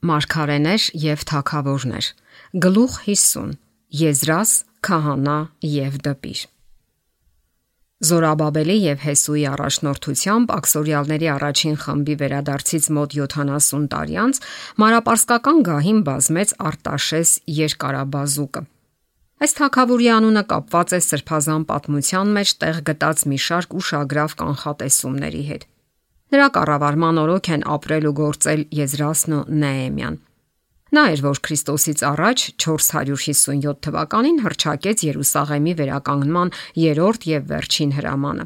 Մարգարեներ եւ թագավորներ։ Գլուխ 50. Եզրաս, քահանա եւ դպիր։ Զորաբաբելի եւ Հեսուի առաջնորդությամբ աքսորիալների առաջին խմբի վերադարձից մոտ 70 տարի անց մարապարսկական գահին բազմեց Արտաշես երկարաբազուկը։ Այս թագավորի անունը կապված է սրբազան պատմության մեջ տեղ գտած մի շարք ուշագրավ կանխատեսումների հետ։ Նրա կառավարման օրոք են ապրել ու գործել Եզրասն ու Նեեմիան։ Նա էր, որ Քրիստոսից առաջ 457 թվականին հռչակեց Երուսաղեմի վերականգնման երրորդ եւ վերջին հրամանը։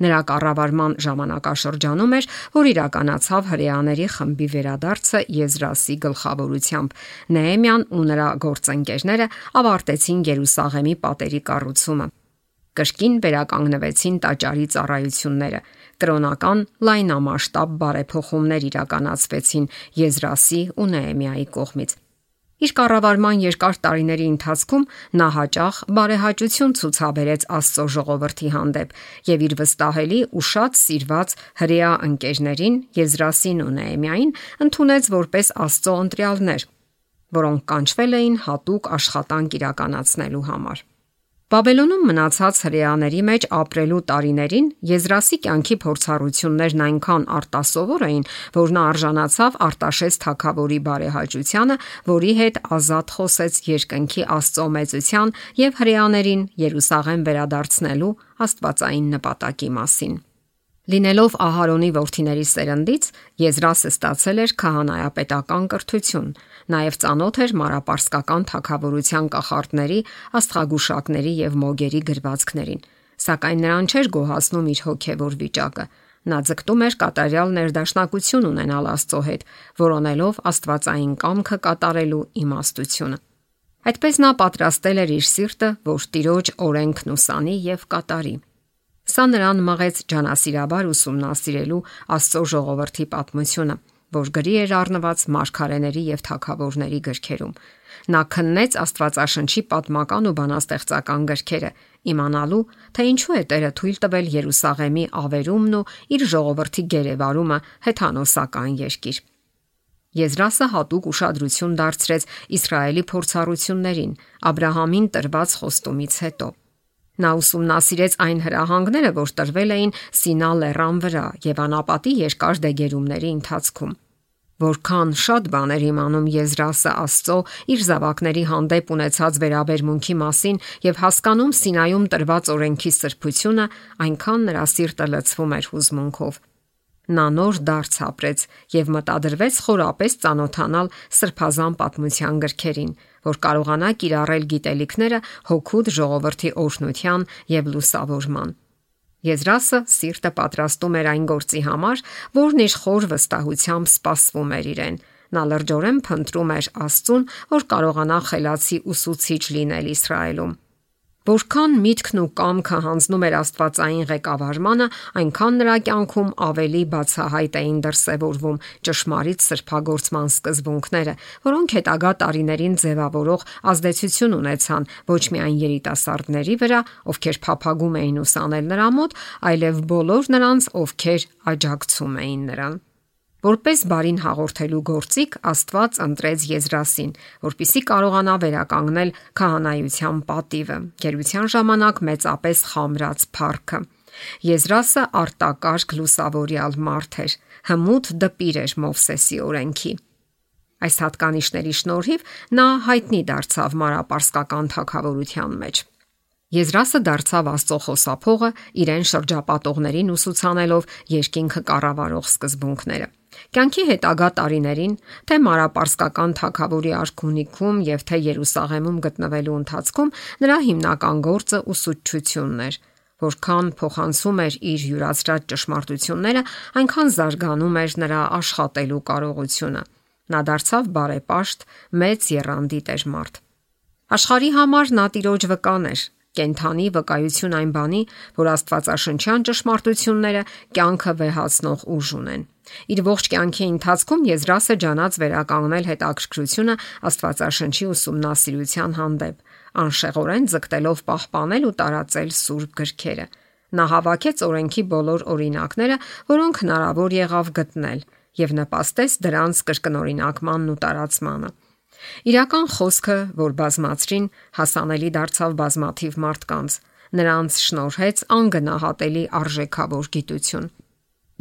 Նրա կառավարման ժամանակաշրջանում էր, որ իրականացավ հրեաների խմբի վերադարձը Եզրասի գլխավորությամբ։ Նեեմիան ու նրա գործընկերները ավարտեցին Երուսաղեմի պատերի կառուցումը։ Կրկին վերականգնվեցին տաճարի ծառայությունները։ Կրոնական լայնամասշտաբ բարեփոխումներ իրականացվեցին Եզրասի ու Նեեմիայի կողմից։ Իր կառավարման երկար տարիների ընթացքում նա հաճախ բարեհաճություն ցուցաբերեց Աստծո ժողովրդի հանդեպ եւ իր վստահելի ու շատ սիրված հրեա ընկերներին Եզրասին ու Նեեմիային ընդունեց որպես Աստծո ընտրյալներ, որոնք կանչվել էին հատուկ աշխատանք իրականացնելու համար։ Բաբելոնում մնացած հրեաների մեջ ապրելու տարիներին Եզրասի կյանքի փորձառություններն այնքան արտասովոր էին, որ նա արժանացավ Արտաշես թագավորի բարեհաճությանը, որի հետ ազատ խոսեց երկնքի Աստծո մեծության եւ հրեաներին Երուսաղեմ վերադարձնելու աստվածային նպատակի մասին։ Լինելով Ահարոնի որդիների սերնդից, Եզրասը ստացել էր քահանայապետական կրթություն, նաև ծանոթ էր մարապարսկական թագավորության կախարդների, աստղագուշակների եւ մոգերի գրվածքներին, սակայն նրան չէր գոհացնում իր հոգեվոր վիճակը։ Նա ձգտում էր կատարյալ ներդաշնակություն ունենալ Աստծո հետ, որոնելով աստվածային կամքը կատարելու իմաստությունը։ Այդպես նա պատրաստել էր իր սիրտը, որ Տիրոջ օրենքն ուսանի եւ կատարի։ Սա նրան մղեց ջանասիրաբար ուսումնասիրելու Աստծո ժողովրդի պատմությունը, որ գրի էր առնված մարգարեների եւ թագավորների գրքերում։ Նա քննեց Աստվածաշնչի պատմական ու բանաստեղծական գրքերը, իմանալու, թե ինչու է Տերը թույլ տվել Երուսաղեմի ավերումն ու իր ժողովրդի գերեվարումը հեթանոսական երկիր։ Եզրասը հատուկ ուշադրություն դարձրեց Իսրայելի փորձառություններին, Աբրահամին տրված խոստումից հետո։ Նա ուսումնասիրեց այն հրահանգները, որ տրվել էին Սինա լեռան վրա եւ անապատի երկար դեգերումների ընթացքում։ Որքան շատ բաներ իմանում Եզրասը Աստծո իր զավակների հանդեպ ունեցած վերաբերմունքի մասին եւ հասկանում Սինայում տրված օրենքի սրբությունը, այնքան նրա սիրտը լցվում էր հուզմունքով։ Նա նոր դարձ ապրեց եւ մտադրվեց խորապես ծանոթանալ սրբազան պատմության գրքերին, որ կարողանա կիրառել գիտելիքները հոգուտ ժողովրդի օրհնության եւ լուսավորման։ Եզրասը սիրտը պատրաստում էր այն գործի համար, որն իր խոր վստահությամբ սպասվում էր իրեն։ Նա լրջորեն փնտրում էր Աստծուն, որ կարողանա խելացի ուսուցիչ լինել Իսրայելում։ Որքան միտքն ու կամքը հանձնում էր աստվածային ղեկավարմանը, այնքան նրա կյանքում ավելի բացահայտ էին դրսևորվում ճշմարիտ սրբագործման սկզբունքները, որոնք հետագա տարիներին ձևավորող ազդեցություն ունեցան ոչ միայն երիտասարդների վրա, ովքեր փափագում էին ուսանել նրա մոտ, այլև բոլոր նրանց, ովքեր աջակցում էին նրան։ Որպես բարին հաղորդելու գործիք Աստված ընտրեց Եզրասին, որպիսի կարողանա վերականգնել քահանայության պատիվը, գերության ժամանակ մեծապես խամրած փառքը։ Եզրասը արտակարգ լուսավորյալ մարդ էր, հմուտ դպիր էր Մովսեսի օրենքի։ Այս հատկանիշների շնորհիվ նա հայտնի դարձավ մարապարսկական թագավորության մեջ։ Եզրասը դարձավ Աստծո խոսափողը, իրեն շրջապատողներին ուսուցանելով երկինքը կառավարող սկզբունքները։ Կյանքի հետագա տարիներին, թե մարապարսկական թագավորի արքունիքում եւ թե Երուսաղեմում գտնվելու ընթացքում նրա հիմնական գործը ուսուցչությունն էր։ Որքան փոխանցում էր իր յուրացրած ճշմարտությունները, այնքան զարգանում էր նրա աշխատելու կարողությունը։ Նա դարձավ բարեպաշտ, մեծ եռանդի տերմարդ։ Աշխարհի համար նա Տիրոջ վկան էր, կենթանի վկայություն այն բանի, որ աստվածաշնչյան ճշմարտությունները կյանքը վեհացնող ուժ ունեն։ Իր ողջ կյանքի ընթացքում Եզրասը ջանաց վերականգնել հետաքրքրությունը Աստվածաշնչի ուսումնասիրության հանդեպ, անշեղորեն ձգտելով պահպանել ու տարածել սուրբ գրքերը։ Նա հավաքեց օրենքի բոլոր օրինակները, որոնք հնարավոր եղավ գտնել, եւ նպաստեց դրանց կրկնօրինակմանն ու տարածմանը։ Իրական խոսքը, որ բազմացրին, հասանելի դարձավ բազմաթիվ մարդկանց, նրանց շնորհեց անգնահատելի արժեքավոր գիտություն։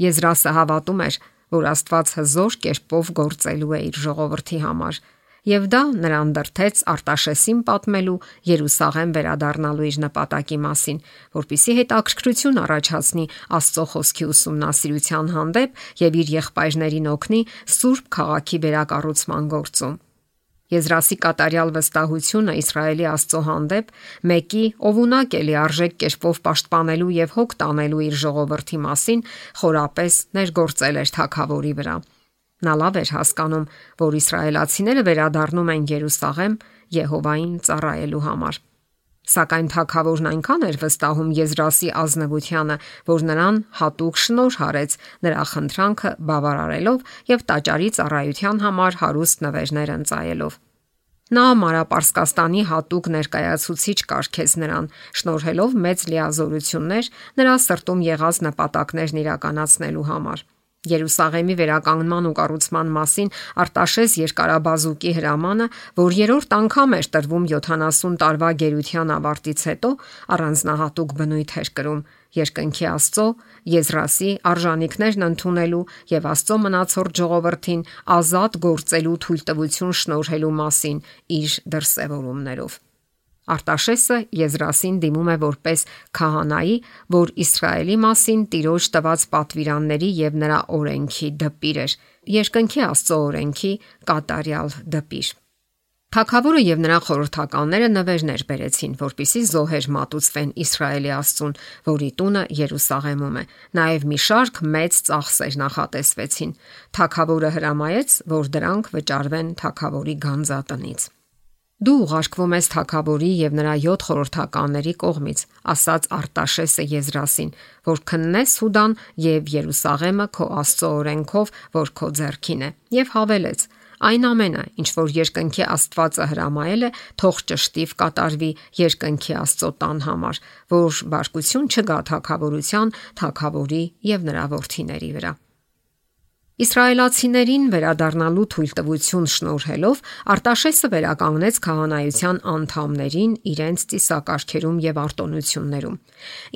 Եզրասը հավատում էր, որ Աստված հզոր կերպով գործելու է իր ժողովրդի համար, եւ դա նրան դրդեց Արտաշեսին պատմելու Երուսաղեմ վերադառնալու իր նպատակի մասին, որպիսի հետաքրքրություն առաջացնի Աստծո խոսքի ուսումնասիրության հանդեպ եւ իր եղբայրներին օգնի Սուրբ քաղաքի վերակառուցման գործում։ Եզրասի կատարյալ վստահությունը Իսրայելի Աստծո հանդեպ, մեկի, ով ունակ է լիարժեք կերպով պաշտպանելու եւ հոգ տանելու իր ժողովրդի մասին, խորապես ներգործել էր թագավորի վրա։ Նա լավ էր հասկանում, որ իսրայելացիները վերադառնում են Երուսաղեմ Եհովային ծառայելու համար։ Սակայն թագավորն այնքան էր վստահում Եզրասի ազնվությանը, որ նրան հատուկ շնորհ արեց նրա խնդրանքը բավարարելով եւ տաճարի ծառայության համար հարուստ նվերներ ընծայելով։ Նա Մարապարսկաստանի հատուկ ներկայացուցիչ կարգեց նրան, շնորհելով մեծ լիազորություններ նրա սրտում եղած նպատակներն իրականացնելու համար։ Երուսաղեմի վերականգնման ու կառուցման մասին Արտաշես երկարաբազուկի հրամանը, որ երրորդ անգամ էր տրվում 70 տարվա գերության ավարտից հետո, առանձնահատուկ բնույթ էր կրում երկնքի Աստծո, Եզրասի արժանինքներն ընդունելու եւ Աստծո մնացորդ ժողովրդին ազատ գործելու թույլտվություն շնորհելու մասին իր դրսևորումներով։ Արտաշեսը Եզրասին դիմում է որպես քահանայի, որ Իսրայելի մասին Տիրոջ տված պատվիրանների եւ նրա օրենքի դպիր էր, երկնքի Աստծո օրենքի կատարյալ դպիր։ Թագավորը եւ նրա խորհրդականները նվերներ բերեցին, որպիսի զոհեր մատուցվեն Իսրայելի Աստծուն, որի տունը Երուսաղեմում է։ Նաեւ մի շարք մեծ ծախսեր նախատեսվեցին։ Թագավորը հրամայեց, որ դրանք վճարվեն թագավորի գանձատնից։ Դու ուղարկվում ես թագավորի եւ նրա 7 խորհրդականների կողմից, ասաց Արտաշեսը Եզրասին, որ քննես Հուդան եւ Երուսաղեմը քո Աստծո օրենքով, որ քո ձեռքին է, եւ հավելեց. այն ամենը, ինչ որ երկնքի Աստվածը հրամայել է, թող ճշտիվ կատարվի երկնքի Աստծո տան համար, որ բարկություն չգա թագավորության, թագավորի եւ նրա որդիների վրա։ Իսրայելացիներին վերադառնալու թույլտվություն շնորհելով Արտաշեսը վերականգնեց քահանայության անդամներին իրենց ծիսակարգերում եւ արտոնություններում։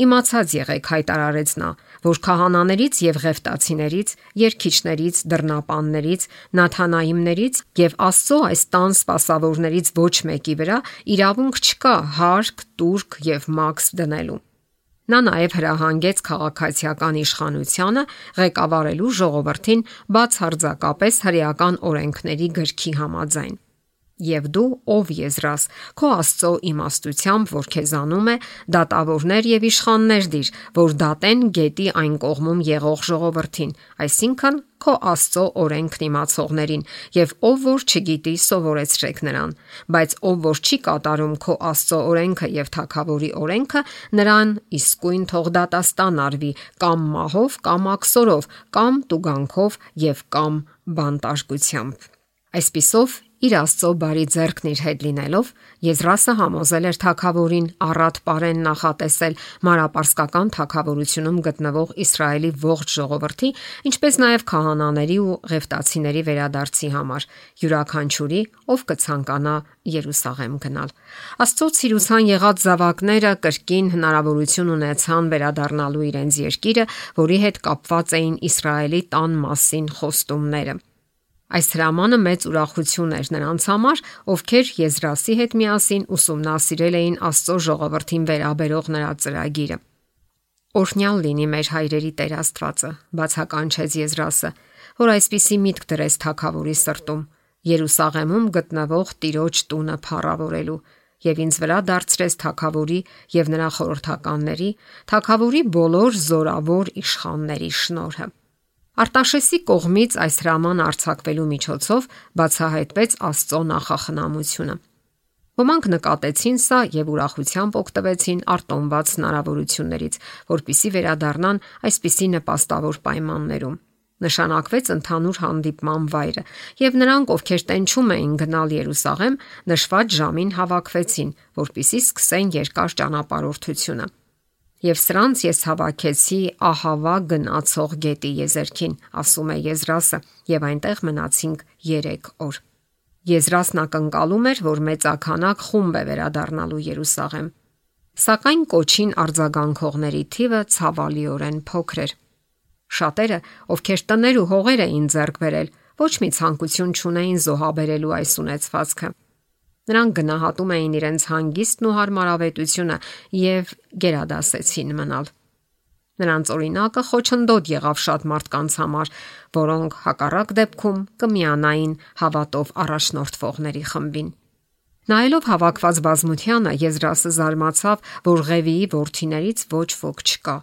Իմացած եղեք, հայտարարեց նա, որ քահանաներից եւ ղևտացիներից, երգիչներից, դռնապաններից, նաթանայիմներից եւ Աստծո այս տան սպասավորներից ոչ մեկի վրա իրավունք չկա հարկ, տուրք եւ մաքս դնելու։ Նա նաև հրահանգեց քաղաքացիական իշխանությանը ղեկավարելու ժողովրդին բացարձակապես հրեական օրենքների գրքի համաձայն։ Եվ դու, ով Եզրաս, քո Աստծո իմաստությամբ, որ քեզանում է, դատավորներ եւ իշխաններ դիր, որ դատեն գետի այն կողմում եղող ժողովրդին, այսինքն քո Աստծո օրենքն իմացողներին, եւ ով որ չգիտի, սովորեցրեք նրան, բայց ով որ չի կատարում քո Աստծո օրենքը եւ թագավորի օրենքը, նրան իսկույն թող դատաստան արվի, կամ մահով, կամ աքսորով, կամ տուգանքով եւ կամ բանտարկությամբ։ Այսպիսով իր Աստծո բարի ձեռքն իր հետ լինելով, Եզրասը համոզել էր թագավորին առատ պարեն նախատեսել Մարապարսկական թագավորությունում գտնվող Իսրայելի ողջ ժողովրդի, ինչպես նաև քահանաների ու ղևտացիների վերադարձի համար, յուրաքանչյուրի, ով կցանկանա Երուսաղեմ գնալ։ Աստծո ցիրուցան եղած զավակները կրկին հնարավորություն ունեցան վերադառնալու իրենց երկիրը, որի հետ կապված էին Իսրայելի տան մասին խոստումները։ Այս հրամանը մեծ ուրախություն էր նրանց համար, ովքեր Եզրասի հետ միասին ուսումնասիրել էին Աստծո ժողովրդին վերաբերող նրա ծրագիրը։ Օրհնյալ լինի մեր հայրերի Տեր Աստվածը, բացականչեց Եզրասը, որ այսպիսի միտք դրեց թագավորի սրտում, Երուսաղեմում գտնվող Տիրոջ տունը փառավորելու, եւ ինձ վրա դարձրեց թագավորի եւ նրա խորհրդականների, թագավորի բոլոր զորավոր իշխանների շնորհը։ Արտաշեսի կողմից այս հրաման արձակվելու միջոցով բացահայտվեց Աստծո նախախնամությունը։ Ոմանք նկատեցին սա եւ ուրախությամբ օգտվեցին արտոնված հնարավորություններից, որpիսի վերադառնան այսպիսի նպաստավոր պայմաններում։ Նշանակվեց ընդհանուր հանդիպման վայրը, եւ նրանք, ովքեր տենչում էին գնալ Երուսաղեմ, նշված ժամին հավաքվեցին, որpիսի սկսեն երկար ճանապարհորդությունը։ Եվ սրանց ես հավաքեցի Ահավա գնացող գետի եզերքին, ասում է Եզրասը, եւ այնտեղ մնացինք 3 օր։ Եզրասն ակնկալում էր, որ մեծաքանակ խումբ է վերադառնալու Երուսաղեմ, սակայն կոչին արձագանքողների թիվը ցավալիորեն փոքր էր։ Շատերը, ովքեր տներ ու հողեր էին ձեռք բերել, ոչ մի ցանկություն չունեին զոհաբերելու այս ունեցվածքը։ Նրանք գնահատում էին իրենց հանգիստն ու հարմարավետությունը եւ գերադասեցին մնալ։ Նրանց օրինակը խոչընդոտ եղավ շատ մարդկանց համար, որոնք հակառակ դեպքում կմիանային հավատով առաջնորդվողների խմբին։ Նայելով հավաքված բազմությանը, Եզրասը զարմացավ, որ Ղևիի որդիներից ոչ ոք չկա։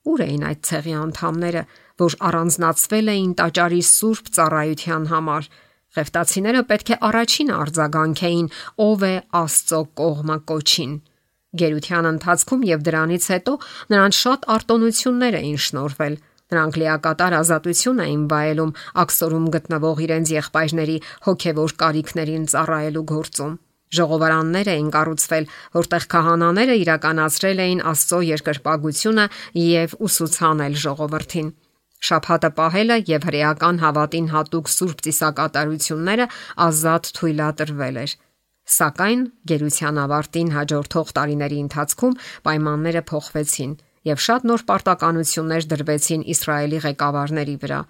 Ուր էին այդ ցեղի անդամները, որ առանձնացվել էին տաճարի սուրբ ծառայության համար։ Ղևտացիները պետք է առաջին արձագանքեին, ով է Աստծո կողմը կոչին։ Գերության ընթացքում եւ դրանից հետո նրանց շատ արտոնություններ էին շնորհվել։ Նրանք լիակատար ազատություն էին վայելում աքսորում գտնվող իրենց եղբայրների հոգևոր կարիքներին ծառայելու գործում։ Ժողովարաններ էին կառուցվել, որտեղ քահանաները իրականացրել էին Աստծո երկրպագությունը եւ ուսուցանել ժողովրդին։ Շաբաթը պահելը եւ հրեական հավատին հատուկ սուրբ ծիսակատարությունները ազատ թույլատրվել էր։ Սակայն գերության ավարտին հաջորդող տարիների ընթացքում պայմանները փոխվեցին եւ շատ նոր պարտականություններ դրվեցին Իսրայելի ղեկավարների վրա։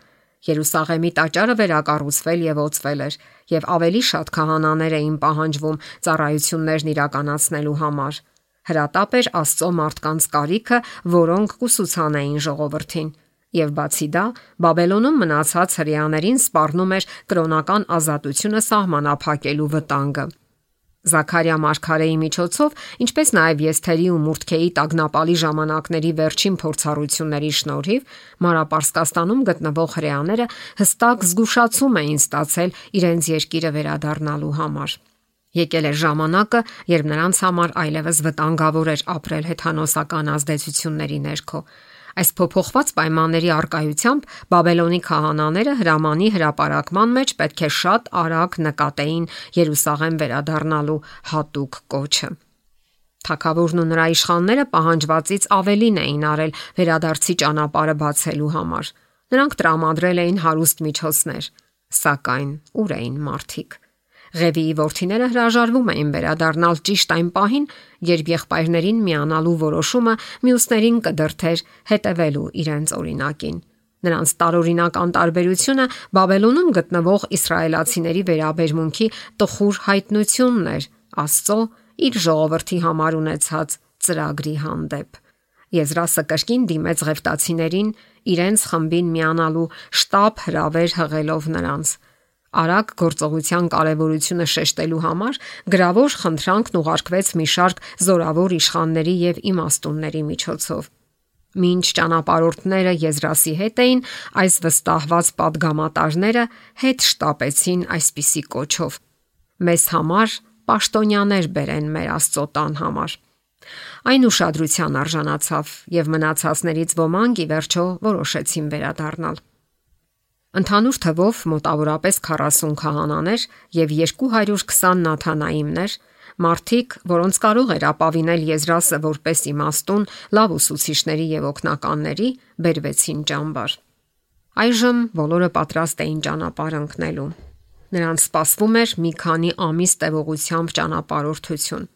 Երուսաղեմի տաճարը վերակառուցվել եւ օծվել էր, եւ ավելի շատ քահանաներ էին պահանջվում ծառայություններն իրականացնելու համար։ Հրատապ էր Աստծո մարդկանց կարիքը, որոնք կուսուցանեին ժողովրդին։ Եվ բացի դա, Բաբելոնում մնացած հրեաներին սպառնում էր կրոնական ազատությունը սահմանափակելու վտանգը։ Զաքարիա մարգարեի միջոցով, ինչպես նաև Եսթերի ու Մուրդքեի տագնապալի ժամանակների վերջին փորձառությունների շնորհիվ, Մանրապարսկաստանում գտնվող հրեաները հստակ զգուշացում էին ստացել իրենց երկիրը վերադառնալու համար։ Եկել էր ժամանակը, երբ նրանց համար այլևս վտանգավոր էր ապրել հեթանոսական ազդեցությունների ներքո։ Այս փոփոխված պայմանների առկայությամբ Բաբելոնի քահանաները հրամանի հրապարակման մեջ պետք է շատ արագ նկատեին Երուսաղեմ վերադառնալու հատուկ կոչը։ Թագավորն ու նրա իշխանները պահանջվածից ավելին էին արել վերադարձի ճանապարհը բացելու համար։ Նրանք տրամադրել էին հարուստ միջոցներ, սակայն ուր էին մարդիկ։ Ղևիի որդիները հրաժարվում էին վերադառնալ ճիշտ այն պահին, երբ եղբայրներին միանալու որոշումը մյուսներին կդրթեր հետևելու իրենց օրինակին։ Նրանց տարօրինակ անտարբերությունը Բաբելոնում գտնվող իսրայելացիների վերաբերմունքի տխուր հայտնությունն էր Աստծո իր ժողովրդի համար ունեցած ծրագրի հանդեպ։ Եզրասը կրկին դիմեց ղևտացիներին իրենց խմբին միանալու շտապ հրավեր հղելով նրանց։ Արագ գործողության կարևորությունը շեշտելու համար գրավոր խնդրանքն ուղարկվեց մի շարք զորավոր իշխանների եւ իմաստունների միջոցով։ Մինչ ճանապարհորդները Եզրասի հետ էին, այս վստահված падգամատարները հետ շտապեցին այսպիսի կոչով. «Մեզ համար պաշտոնյաներ բերեն մեր Աստծո տան համար»։ Այն ուշադրության արժանացավ եւ մնացածներից ոմանք ի վերջո որոշեցին վերադառնալ։ Ընդհանուր թվով մոտավորապես 40 քահանաներ եւ 220 նաթանայիմներ, մարդիկ, որոնց կարող էր ապավինել Եզրասը որպես իմաստուն, լավ ուսուցիչների եւ օգնականների, բերվեցին ճամբար։ Այժմ բոլորը պատրաստ էին ճանապարհ ընկնելու։ Նրանց սպասվում էր մի քանի ամիս տևողությամբ ճանապարհորդություն։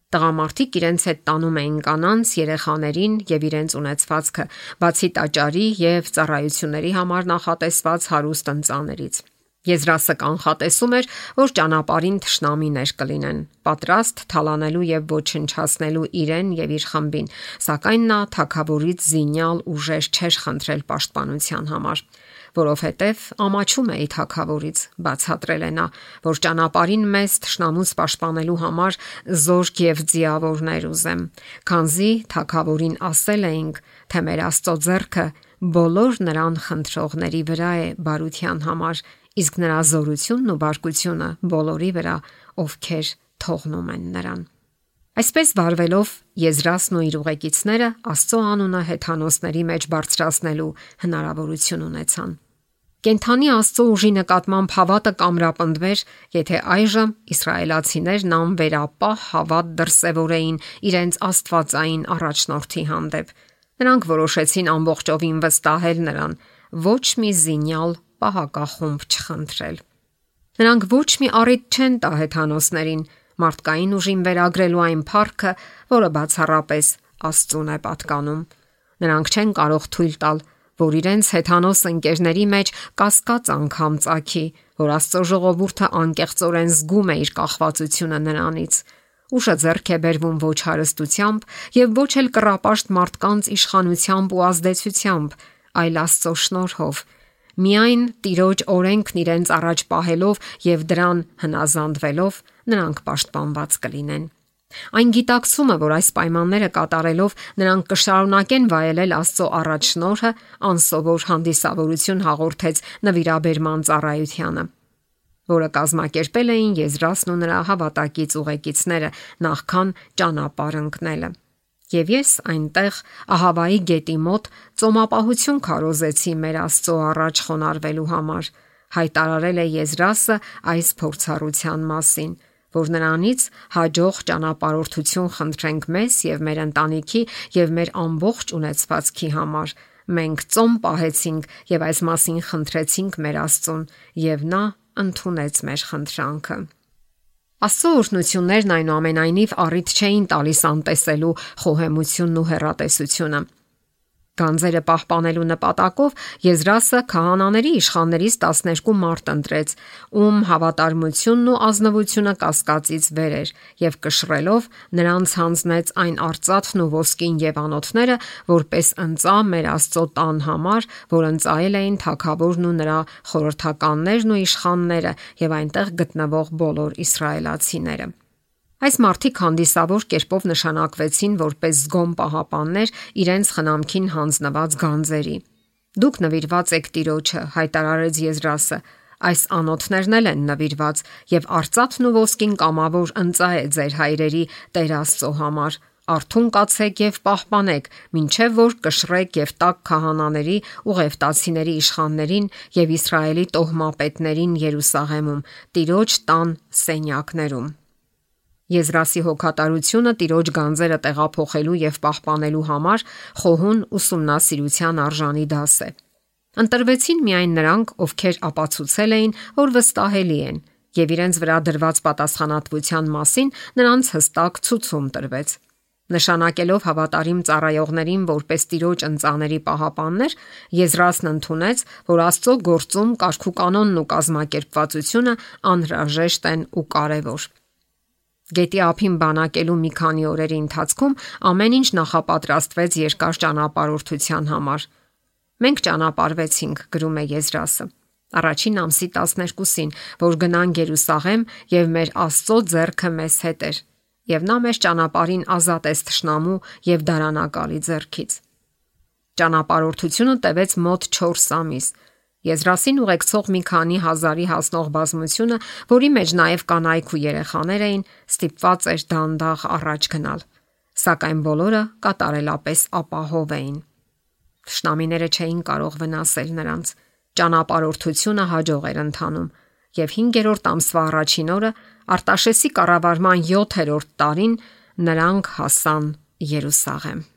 Տղամարդիկ իրենց հետ տանում էին կանանց, երեխաներին եւ իրենց ունեցվածքը, բացի տաճարի եւ ծառայությունների համար նախատեսված հարուստ ընծաներից։ Եզրասը կանխատեսում էր, որ ճանապարհին թշնամիներ կլինեն, պատրաստ թալանելու եւ ոչնչացնելու իրեն եւ իր խմբին, սակայն նա թագավորից զինյալ ուժեր չէր խնդրել պաշտպանության համար, որովհետև ամաչում էի թագավորից, բացատրել է նա, որ ճանապարհին մեզ թշնամուց պաշտպանելու համար զորք եւ ձիավորներ ուզեմ, քանզի թագավորին ասել էինք, թե մեր Աստծո ձեռքը բոլոր նրան խնդրողների վրա է բարության համար, իսկ նրա զորությունն ու բարկությունը բոլորի վրա, ովքեր թողնում են նրան։ Այսպես վարվելով Եզրասն ու իր ուղեկիցները Աստծո անունը հեթանոսների մեջ բարձրացնելու հնարավորություն ունեցան։ Կենթանի Աստծո ուժի նկատմամբ հավատը կամրապնդվեր, եթե այժմ իսրայելացիներն անվերապահ հավատ դրսևորեին իրենց աստվածային առաջնորդի հանդեպ։ Նրանք որոշեցին ամբողջովին վստահել նրան, ոչ մի զինյալ պահակախումբ չխնդրել։ Նրանք ոչ մի առիթ չեն տա հեթանոսներին մարդկային ուժին վերագրելու այն փառքը, որը բացառապես Աստծուն է պատկանում։ Նրանք չեն կարող թույլ տալ, որ իրենց հեթանոս ընկերների մեջ կասկած անգամ ծագի, որ Աստծո ժողովուրդը անկեղծորեն զգում է իր կախվածությունը նրանից։ Ուժը ձեռք է բերվում ոչ հարստությամբ եւ ոչ էլ կռապաշտ մարդկանց իշխանությամբ ու ազդեցությամբ, այլ Աստծո շնորհով։ Միայն Տիրոջ օրենքն իրենց առաջ պահելով եւ դրան հնազանդվելով նրանք պաշտպանված կլինեն։ Այն գիտակցումը, որ այս պայմանները կատարելով նրանք կշարունակեն վայելել Աստծո առաջնորհը, անսովոր հանդիսավորություն հաղորդեց նվիրաբերման ծառայությանը, որը կազմակերպել էին Եզրասն ու նրա հավատակից ուղեկիցները նախքան ճանապարհ ընկնելը։ Եվ ես այնտեղ Ահավայի գետի մոտ ծոմապահություն քարոզեցի մեր Աստծո առաջ խոնարհվելու համար, հայտարարել է Եզրասը այս փորձառության մասին, որ նրանից հաջող ճանապարհորդություն խնդրենք մեզ եւ մեր ընտանիքի եւ մեր ամբողջ ունեցվածքի համար։ Մենք ծոմ պահեցինք եւ այս մասին խնդրեցինք մեր Աստծուն, եւ նա ընդունեց մեր խնդրանքը։ Աստծո օրհնություններն այնուամենայնիվ առիթ չէին տալիս անտեսելու խոհեմությունն ու հեռատեսությունը։ Գանձերը պահպանելու նպատակով Եզրասը քահանաների իշխաններից 12 մարդ ընտրեց, ում հավատարմությունն ու ազնվությունը կասկածից վեր էր, եւ կշռելով նրանց հանձնեց այն արծաթն ու ոսկին եւ անոթները, որպես ընծա մեր Աստծո տան համար, որ ընծայել էին թագավորն ու նրա խորհրդականներն ու իշխանները եւ այնտեղ գտնվող բոլոր իսրայելացիները։ Այս մարդիկ հանդիսավոր կերպով նշանակվեցին որպես զգոմ պահապաններ իրենց խնամքին հանձնված գանձերի։ Դուք նվիրված եք Տիրոջը, հայտարարեց Եզրասը, այս անոթներն են նվիրված եւ արծաթն ու ոսկին կամավոր ընծա է ձեր հայրերի Տեր Աստծո համար։ Արթուն կացեք եւ պահպանեք, մինչեւ որ կշռեք եւ տաք քահանաների ու ղևտացիների իշխաններին եւ Իսրայելի տոհմապետներին Երուսաղեմում, Տիրոջ տան սենյակներում։ Եզրասի հոգատարությունը Տիրոջ գանձերը տեղափոխելու եւ պահպանելու համար խոհուն ուսումնասիրության արժանի դաս է։ Ընտրվեցին միայն նրանք, ովքեր ապացուցել էին, որ վստահելի են, եւ իրենց վրա դրված պատասխանատվության մասին նրանց հստակ ցուցում տրվեց։ Նշանակելով հավատարիմ ծառայողներին որպես Տիրոջ ընծաների պահապաններ, Եզրասն ընդունեց, որ Աստծո գործում կարգուկանոնն ու կազմակերպվածությունը անհրաժեշտ են ու կարևոր։ Գետի ափին բանակելու մի քանի օրերի ընթացքում ամեն ինչ նախապատրաստվեց երկար ճանապարհորդության համար։ Մենք ճանապարհվեցինք, գրում է Եզրասը, առաջին ամսի 12-ին, որ գնանք Երուսաղեմ եւ մեր Աստծո ձեռքը մեզ հետ էր, եւ նա մեզ ճանապարհին ազատեց թշնամու եւ դարանակալի ձեռքից։ Ճանապարհորդությունը տևեց մոտ 4 ամիս։ Եզրասին ուղեկցող մի քանի հազարի հասնող բազմությունը, որի մեջ նաև կանայք ու երեխաներ էին, ստիպված էր դանդաղ առաջ գնալ, սակայն բոլորը կատարելապես ապահով էին։ Թշնամիները չէին կարող վնասել նրանց։ Ճանապարհորդությունը հաջող էր ընթանում, եւ 5-րդ ամսվա առաջին օրը Արտաշեսի կառավարման 7-րդ տարին նրանք հասան Երուսաղեմ։